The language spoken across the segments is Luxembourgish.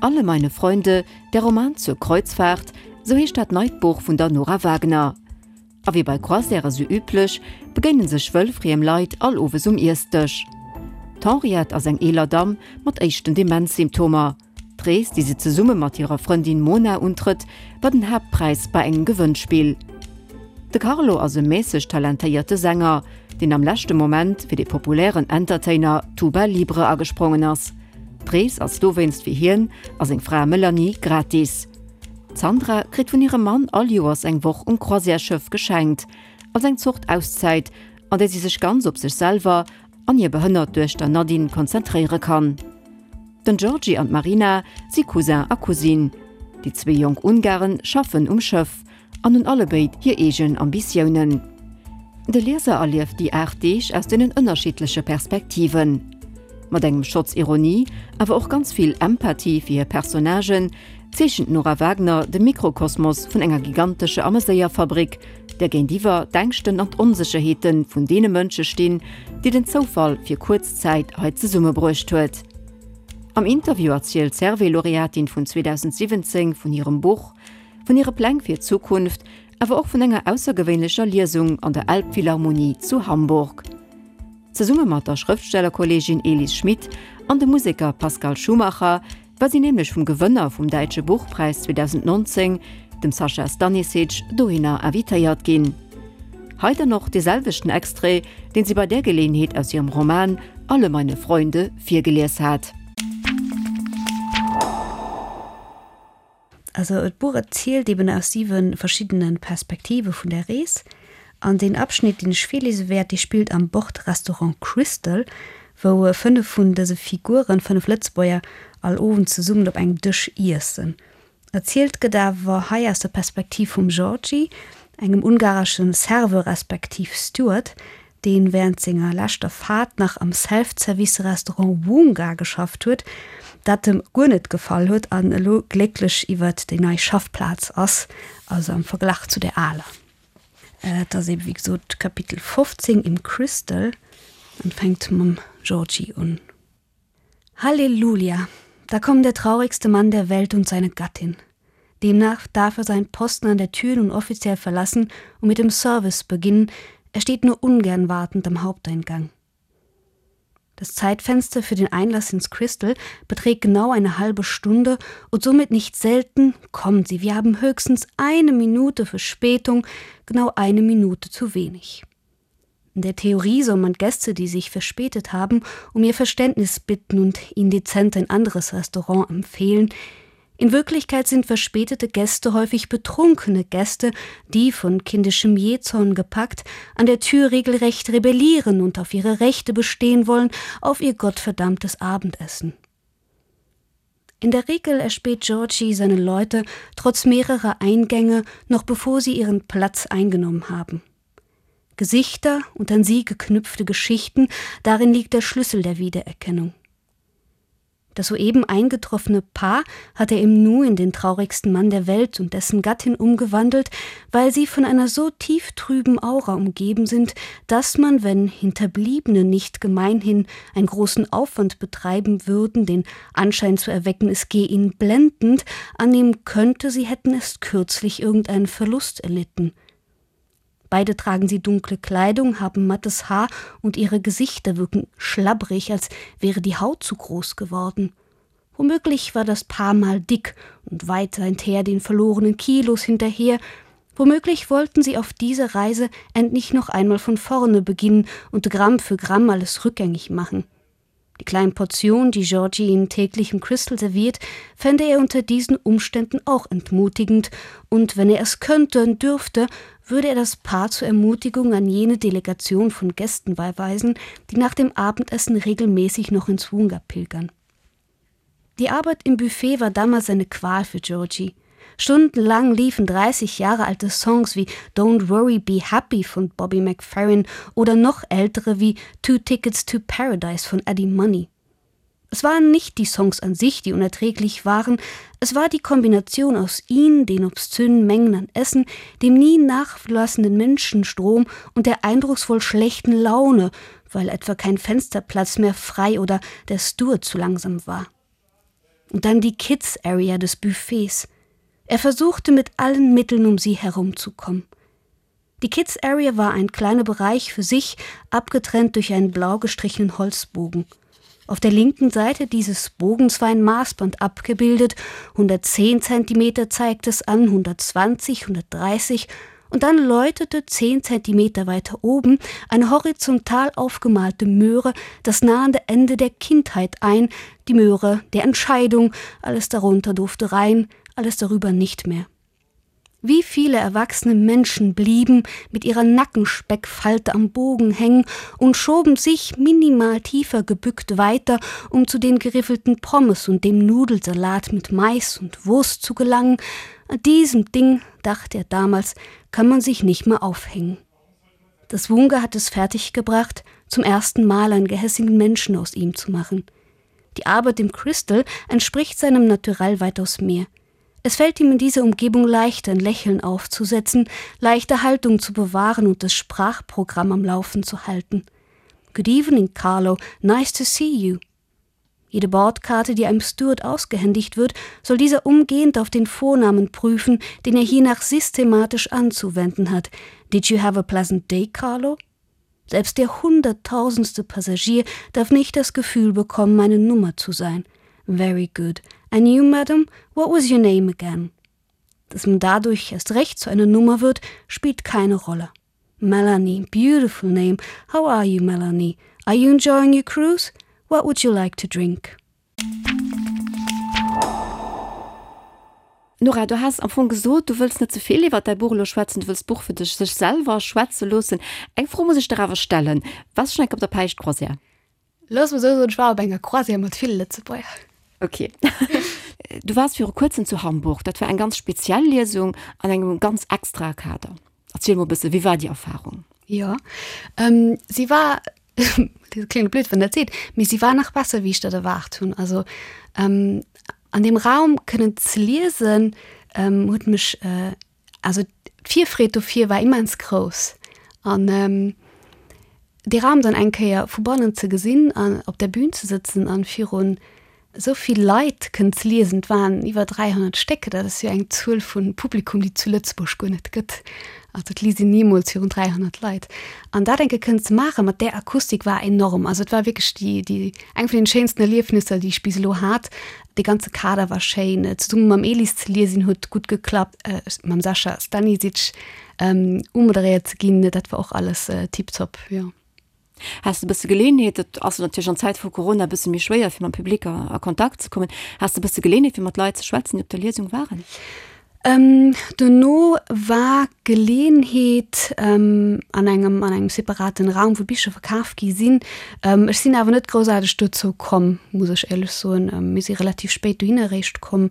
Alle meine Freunde, der Roman zur Kreuzfahrt, sou heescht dat neit Buch vun der Nora Wagner. A wéi bei Croisièrë sou üblech, begéine sech wëllfriem Leit all Owes um Iessdësch. D'Henriette ass eng eeler Damm mat éischten Demenzsymptomer. D'Rees, déi se zesumme mat hirer Frëndin Mona untrëtt, war den Haaptpräis bei engem Gewënnspill. De Carlo ass e mässeg talentéierte Sänger, deen am leschte Moment fir de populären Entertainer Tuba Libre agesprongen ass. D'Rees ass dowéinst fir hien a seng Fra Melanie gratis. D'Sandra kritt vun hirem Mann all Joers eng Woch um Croisièresschëff geschenkt, als eng Zort Auszäit, an där si sech ganz op sech selwer an hir behënnert Duechter Nadine konzentréiere kann. Den Georgi an d'Marina si Cousin a Cousine. Déi zwee jonk Ungaren schaffen um Schëff an hunn allebéid hir eegen Ambitiounen. De Lieser erlieft déi 8 Deeg aus deenen ënnerschiddleche Perspektiven. Mat engem Schotz Ironie, awer och ganz vill Empathie fir hir Personnagen, zeechent d'Nora Wagner de Mikrokosmos vun enger gigantesche Ameséierfabrik, där géintiwwer d'Ängschten an d'Onsécherheete vun deene Mënsche stinn, déi den Zoufall fir kuerz Zäit hei zesummebruecht huet. Am Interview erzielt d'Servais-Laureatin vun 2017 vun hirem Buch, vun hire Pläng fir d'Zukunft, awer och vun enger aussergewéinlecher Liesung an der Elbphilharmonie zu Hamburg. Zesumme mat der Schrëftstellerkolleegin Elis Schmit an dem Museker Pascal Schumacher war si nämlech vum Gewënner vum Däitsche Buchpräis 2019, dem Sascha Stanisic, dohinner invitéiert ginn. Hei dann och dee selwechten Extrait, deen si bei där Geleeënheet aus hirem Roman Alle meine Freunde virgelies hat. Also d'Buch erzielt eben aus siwe verschiddene Perspektive vun der Rees. An deen Abschnitt, deen ech virliese wäert, dee spillt am Bordrestaurant Crystal, wou 5 vun dëse Figuren, 5 Lëtzebuerger, all Owend zesummen op engem Dësch iessen. Erzielt gëtt awer hei aus der Perspektiv vum Georgi, engem ungaresche Serveur respektiv Steward, deen während senger leschter Fahrt nach am Self-Service-Restaurant Wunga geschafft huet, dat em guer net gefall huet an elo glécklech iwwert déi nei Schaffplaz ass, also am Verglach zu der aler. Et ass eben wéi gesot Kapitel 15 im Crystal an fänkt mam Georgie un. Halleluja! Da kommt der traurigste Mann der Welt und seine Gattin. Demnach darf er seinen Posten an der Tür nun offiziell verlassen und mit dem Service beginnen, er steht nur ungern wartend am Haupteingang. Das Zeitfenster für den Einlass ins Crystal beträgt genau eine halbe Stunde und somit nicht selten kommen sie. Wir haben höchstens eine Minute Verspätung, genau eine Minute zu wenig. In der Theorie soll man Gäste, die sich verspätet haben, um ihr Verständnis bitten und ihnen dezent ein anderes Restaurant empfehlen. In Wirklichkeit sind verspätete Gäste häufig betrunkene Gäste, die von kindischem Jezorn gepackt, an der Tür regelrecht rebellieren und auf ihre Rechte bestehen wollen, auf ihr gottverdammtes Abendessen. In der Regel erspäht Georgie seine Leute trotz mehrerer Eingänge noch bevor sie ihren Platz eingenommen haben. Gesichter und an sie geknüpfte Geschichten, darin liegt der Schlüssel der Wiedererkennung. Das soeben eingetroffene Paar hat er im Nu in den traurigsten Mann der Welt und dessen Gattin umgewandelt, weil sie von einer so tieftrüben Aura umgeben sind, dass man, wenn Hinterbliebene nicht gemeinhin einen großen Aufwand betreiben würden, den Anschein zu erwecken, es gehe ihnen blendend, annehmen könnte, sie hätten erst kürzlich irgendeinen Verlust erlitten. Beide tragen sie dunkle Kleidung, haben mattes Haar und ihre Gesichter wirken schlabbrig, als wäre die Haut zu groß geworden. Womöglich war das Paar mal dick und weit seither den verlorenen Kilos hinterher. Womöglich wollten sie auf dieser Reise endlich noch einmal von vorne beginnen und Gramm für Gramm alles rückgängig machen. Die kleinen Portionen, die Georgie ihnen täglich im Crystal serviert, fände er unter diesen Umständen auch entmutigend, und wenn er es könnte und dürfte, würde er das Paar zur Ermutigung an jene Delegation von Gästen beiweisen, die nach dem Abendessen regelmäßig noch ins Wunga pilgern. Die Arbeit im Buffet war damals eine Qual für Georgie. Stundenlang liefen 30 Jahre alte Songs wie Don't Worry Be Happy von Bobby McFerrin oder noch ältere wie Two Tickets to Paradise von Eddie Money. Es waren nicht die Songs an sich, die unerträglich waren, es war die Kombination aus ihnen, den obszönen Mengen an Essen, dem nie nachlassenden Menschenstrom und der eindrucksvoll schlechten Laune, weil etwa kein Fensterplatz mehr frei oder der Steward zu langsam war. Und dann die Kids Area des Buffets. Er versuchte mit allen Mitteln um sie herumzukommen. Die Kids Area war ein kleiner Bereich für sich, abgetrennt durch einen blau gestrichenen Holzbogen. Auf der linken Seite dieses Bogens war ein Maßband abgebildet, 110 cm zeigt es an, 120, 130 und dann läutete 10 cm weiter oben eine horizontal aufgemalte Möhre das nahende Ende der Kindheit ein, die Möhre der Entscheidung, alles darunter durfte rein, alles darüber nicht mehr. Wie viele erwachsene Menschen blieben mit ihrer Nackenspeckfalte am Bogen hängen und schoben sich minimal tiefer gebückt weiter, um zu den geriffelten Pommes und dem Nudelsalat mit Mais und Wurst zu gelangen. An diesem Ding, dachte er damals, kann man sich nicht mehr aufhängen. Das Wunga hat es fertiggebracht, zum ersten Mal einen gehässigen Menschen aus ihm zu machen. Die Arbeit im Crystal entspricht seinem Naturell weitaus mehr. Es fällt ihm in dieser Umgebung leichter, ein Lächeln aufzusetzen, leichter Haltung zu bewahren und das Sprachprogramm am Laufen zu halten. Good evening, Carlo. Nice to see you. Jede Bordkarte, die einem Steward ausgehändigt wird, soll dieser umgehend auf den Vornamen prüfen, den er hiernach systematisch anzuwenden hat. Did you have a pleasant day, Carlo? Selbst der hunderttausendste Passagier darf nicht das Gefühl bekommen, eine Nummer zu sein. Very good. And you, madam, what was your name again? Dass man dadurch erst recht zu einer Nummer wird, spielt keine Rolle. Melanie, beautiful name. How are you, Melanie? Are you enjoying your cruise? What would you like to drink? Nora, du has am Fong gesot, du wëlls net ze vill iwwer däi Buch elo schwätzen, du wëlls d'Buch fir dech sech selwer schwätze loossen. Eng Fro muss ech der awer stellen, Waars du schonn eng Kéier op der Päischtcroisière? Looss mer esou soen, ech war op enger Croisière mat ville Lëtzebuerger. Ok. Du waars viru kuerzem zu Hamburg. Dat war eng ganz speziell Liesung an engem ganz extrae Kader. Erziel mol e bësse, wéi war déi Erfarung? Jo, si war dat kléngt blöd, wann dat seet, mee si war nach besser, wéi ech dat erwaart hunn. Also an deem Raum kënnen ze liesen, huet mech, also d'Virfreed dofir war immens grouss. An dee Raum dann eng Kéier vu bannen ze gesinn an op der Bühn ze sëtzen an virun Esou vill Leit kënnen ze liesen, et waren iwwer 300 Stéck, dat ass jo eng Zuel vu Publikum, déi et zu Lëtzebuerg guer net gëtt. Also et liest een nimools virun 300 Leit. An dat eng Kéier kënnen ze maachen, mat där Akustik, war enorm. Also et war wierklech déi, déi, eng vun den schéinsten Erliefnisser, déi ech bis elo hat. Dee ganze Kader war schéin. Zesumme mam Elis ze liesen huet gutt geklappt, mam Sascha Stanisic umoderéiert ze ginn, dat war och alles tiptop, jo. Has de bësse Geleeënheet, et ass natierlech an Zäite vu Corona e bësse méi schwéier fir mam Public a Kontakt ze kommen, has de bësse Geleeënheet fir mat Leit ze schwätzen, déi op der Liesung waren? Dono war Geleeënheet an engem an engem separaten Raum, wou Bicher verkaf gi sinn. Ech sinn awer net groussaarteg dozou komm, muss ech éierlech soen. Mir si relativ spéit dohinner eréischt komm.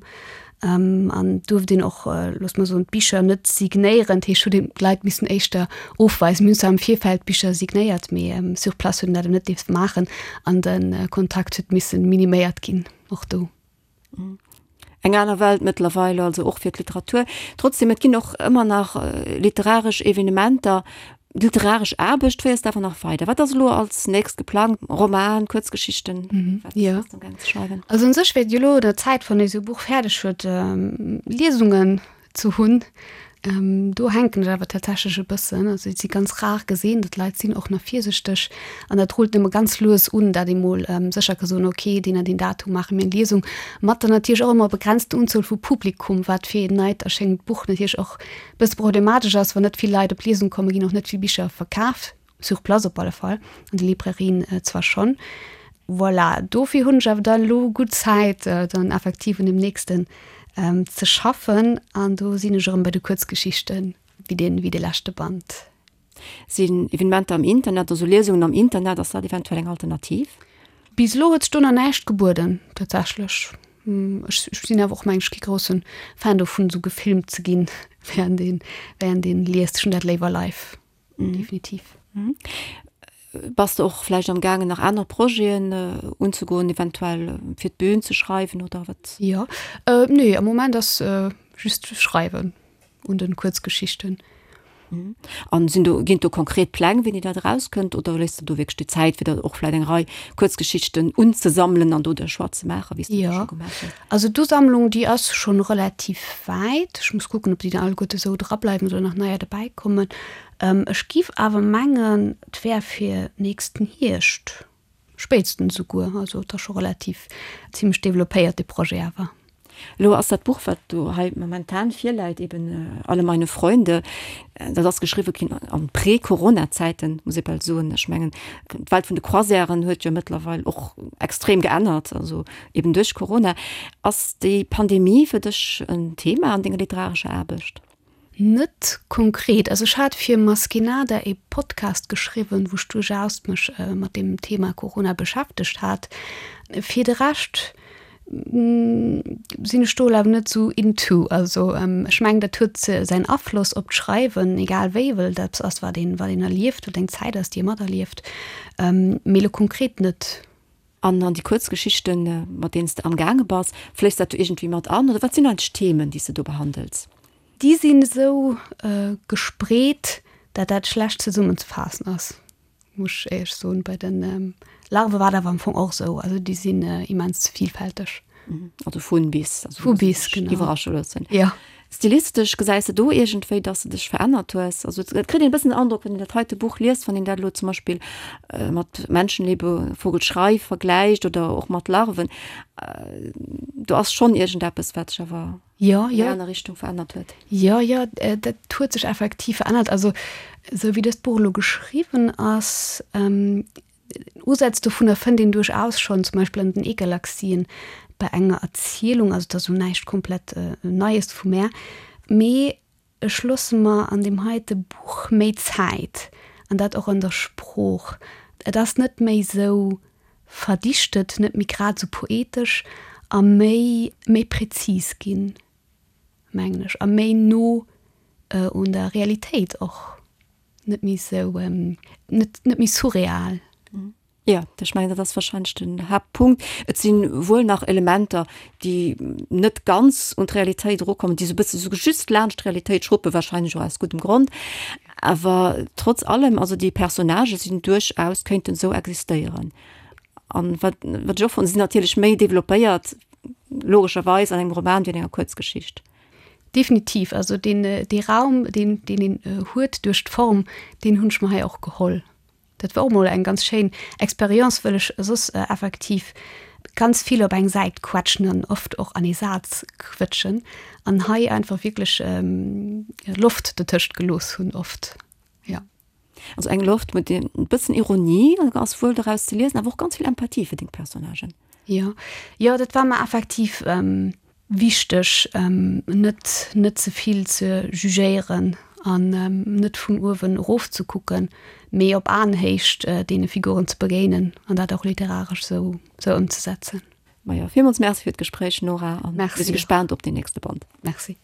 An duerft een och, looss mer soen, d'Bicher net signéieren. Dat heescht, huet een d'Leit missen éischter ofweisen. Mir hunn zwar am Virfeld d'Bicher signéiert, mee sur place huet een dat eben net dierft maachen an de Kontakt huet missen miniméiert ginn, och do. Eng aner Welt mëttlerweil also och fir d'Literatur. Trotzdem, et ginn och ëmmer nach literaresch Evenementer. D'literaresch Aarbecht féiers de awer nach weider. Wat ass elo als nächst geplangt? Roman, Kuerzgeschichten? Wat ja. bass du amgaang ze schreiwen? Also un sech wär et jo elo un der Zäit, wann ee sou e Buch fäerdeg huet, Liesungen ze hunn. Do hänken ech awer tatsächlech e bëssen. Also et si ganz rar gesinn, datt d'Leit sinn och nach virsichteg an dat rullt nëmme ganz lues un, dat ee mol sécher ka soen, okay, deen an deen Datum maache mir eng Liesung, mat der natierlech och ëmmer begrenzten Unzuel vu Publikum, wat fir een neit erschéngend Buch natierlech och Bësse problematesch ass, wann net vill Leit op d'Liesung kommen, ginn och net vill Bicher verkaf, sur place op alle Fall, an de Librairien zwar schonn. Voilà, dofir hunn ech awer dann elo gutt Zäit, dann effektiv un dem nächsten ze schaffen an do sinn ech erëm bei de Kuerzgeschichten, wéi dee wéi de leschte Band. Sinn Evenementer am Internet, also Liesungen am Internet, ass dat eventuell eng Alternativ? Bis elo huet sech do nach näischt gebueden, tatsächlech. Ech sinn awer och, meng ech, kee grousse Fan dovun, esou gefilmt ze ginn, während een, während een liest. Ech hunn dat léiwer live, definitiv. Bass de och vläicht am gaangen, nach aner Projeten unzegoen, eventuell fir d'Bün ze schreiwen oder wat? Jo, nee, am Moment ass just schreiwen un den Kuerzgeschichten. An sinn do, ginn et do konkret Pläng, wéini dat erauskënnt, oder léiss de do wierklech déi Zäit, fir der och vläicht eng Rei Kuerzgeschichten unzesammelen an do de Choix ze maachen, wéi s de dat scho gemaach hues? Also d'Usammlung, déi ass schonn relativ wäit. Ech muss kucken, ob déi dann alleguerte esou drableiwen oder nach neier dobäikommen. Ech giff awer mengen, et wär fir nächsten Hierscht. Spéitstens esouguer. Also et ass scho relativ zimlech developpéiert, dee Projet awer. Elo ass dat Buch, wat do hei momentan virläit, eben Alle meine Freunde, dat ass geschriwwe ginn an Prä-Corona-Zäiten, muss ee bal soen. Ech mengen, d'Welt vun de Croisièren huet jo mëttlerweil och extrem geännert, also eben duerch Corona. Ass déi Pandemie fir dech en Thema an denger literarescher Aarbecht? Net konkret. Also ech hat fir Maskinada ee Podcast geschriwwen, wou ech duerchaus mech mat deem Thema Corona beschäftegt hat. Fir de Rescht sinn ech do awer net esou into. Also ech mengen, dat huet säin Afloss op d'Schreiwen, egal wéi, well dat ass wat een, wat een erlieft, wat eng Zäit ass, déi ee materlieft. Mee elo konkret net. An an déi Kuerzgeschichten, mat deenen s de amgaange bass, fléisst dat do iergendwéi mat an oder wat sinn eigentlech d'Themen, déi s de do behandels? Déi sinn esou gespreet, dat dat schlecht zesummenzefaassen ass, muss ech éierlech soen. Bei de Larve war et awer am Fong och esou, also déi sinn immens vielfälteg. Also vun bis, also vu bis, genau. Iwwerrasche loossen. Jo. Stilistesch gesäis de do iergendwéi, dass de dech verännert hues? Also et kritt een e bëssen den Androck, wann een dat heite Buch liest, wann een dat elo zum Beispill mat Menschenlebe, Vogelschrei vergläicht oder och mat Larven, do ass schonn iergendeppes, wat sech awer. Jo, jo. An eng aner Richtung verännert huet. Jo, jo, dat huet sech effektiv verännert. Also esou wéi dëst Buch elo geschriwwen ass, Usätz dovunner fënnt een duerchaus schonn, zum Beispill an den E-Galaxien bei enger Erzielung, also et ass elo näischt komplett Neies vu mär, mee ech loosse mer an deem heite Buch méi Zäit, an dat och an der Sprooch. Et ass net méi esou verdichtet, net méi grad esou poetesch a méi méi präzis ginn, mengen ech, a méi no un der Realitéit och. Net méi sou, net, net méi surreal. Jo, ech mengen, dat ass wahrscheinlech den Haaptpunkt. Et si wuel nach Elementer, déi net ganz un d'Realitéit erukommen, déi sou e bësse sou just laanscht d'Realitéit schruppen, wahrscheinlech och aus guddem Grond. Awer trotz allem, also déi Personnagë sinn duerchaus, kéinten esou existéieren. An wat, wat ech och fannen, si sinn natierlech méi developpéiert, logescherweis, an engem Roman wéi an enger Kuerzgeschicht. Definitiv, also deen, dee Raum, deen, deen een huet duerch d'Form, deen hunn ech mer hei och geholl. Dat war och mol eng ganz schéin Expérience, wëll ech soss effektiv ganz vill op eng Säit quetschen an oft och an ee Saz quëtschen an hei einfach wierklech Loft dotëscht gelooss hunn oft, jo. Also eng Loft mat e bëssen Ironie ass wuel doraus ze liesen, awer och ganz vill Empathie fir deng Personnagen. Jo, jo, dat war mer effektiv wichteg, net, net ze vill ze jugéieren an net vun uewen erof ze kucken, mee op Aenhéicht deene Figuren ze begéinen an dat och literaresch esou, esou ëmzesetzen. Majo, villmools Merci fir d'Gespréich, Nora, an mir si gespaant op deen nächste Band. Merci.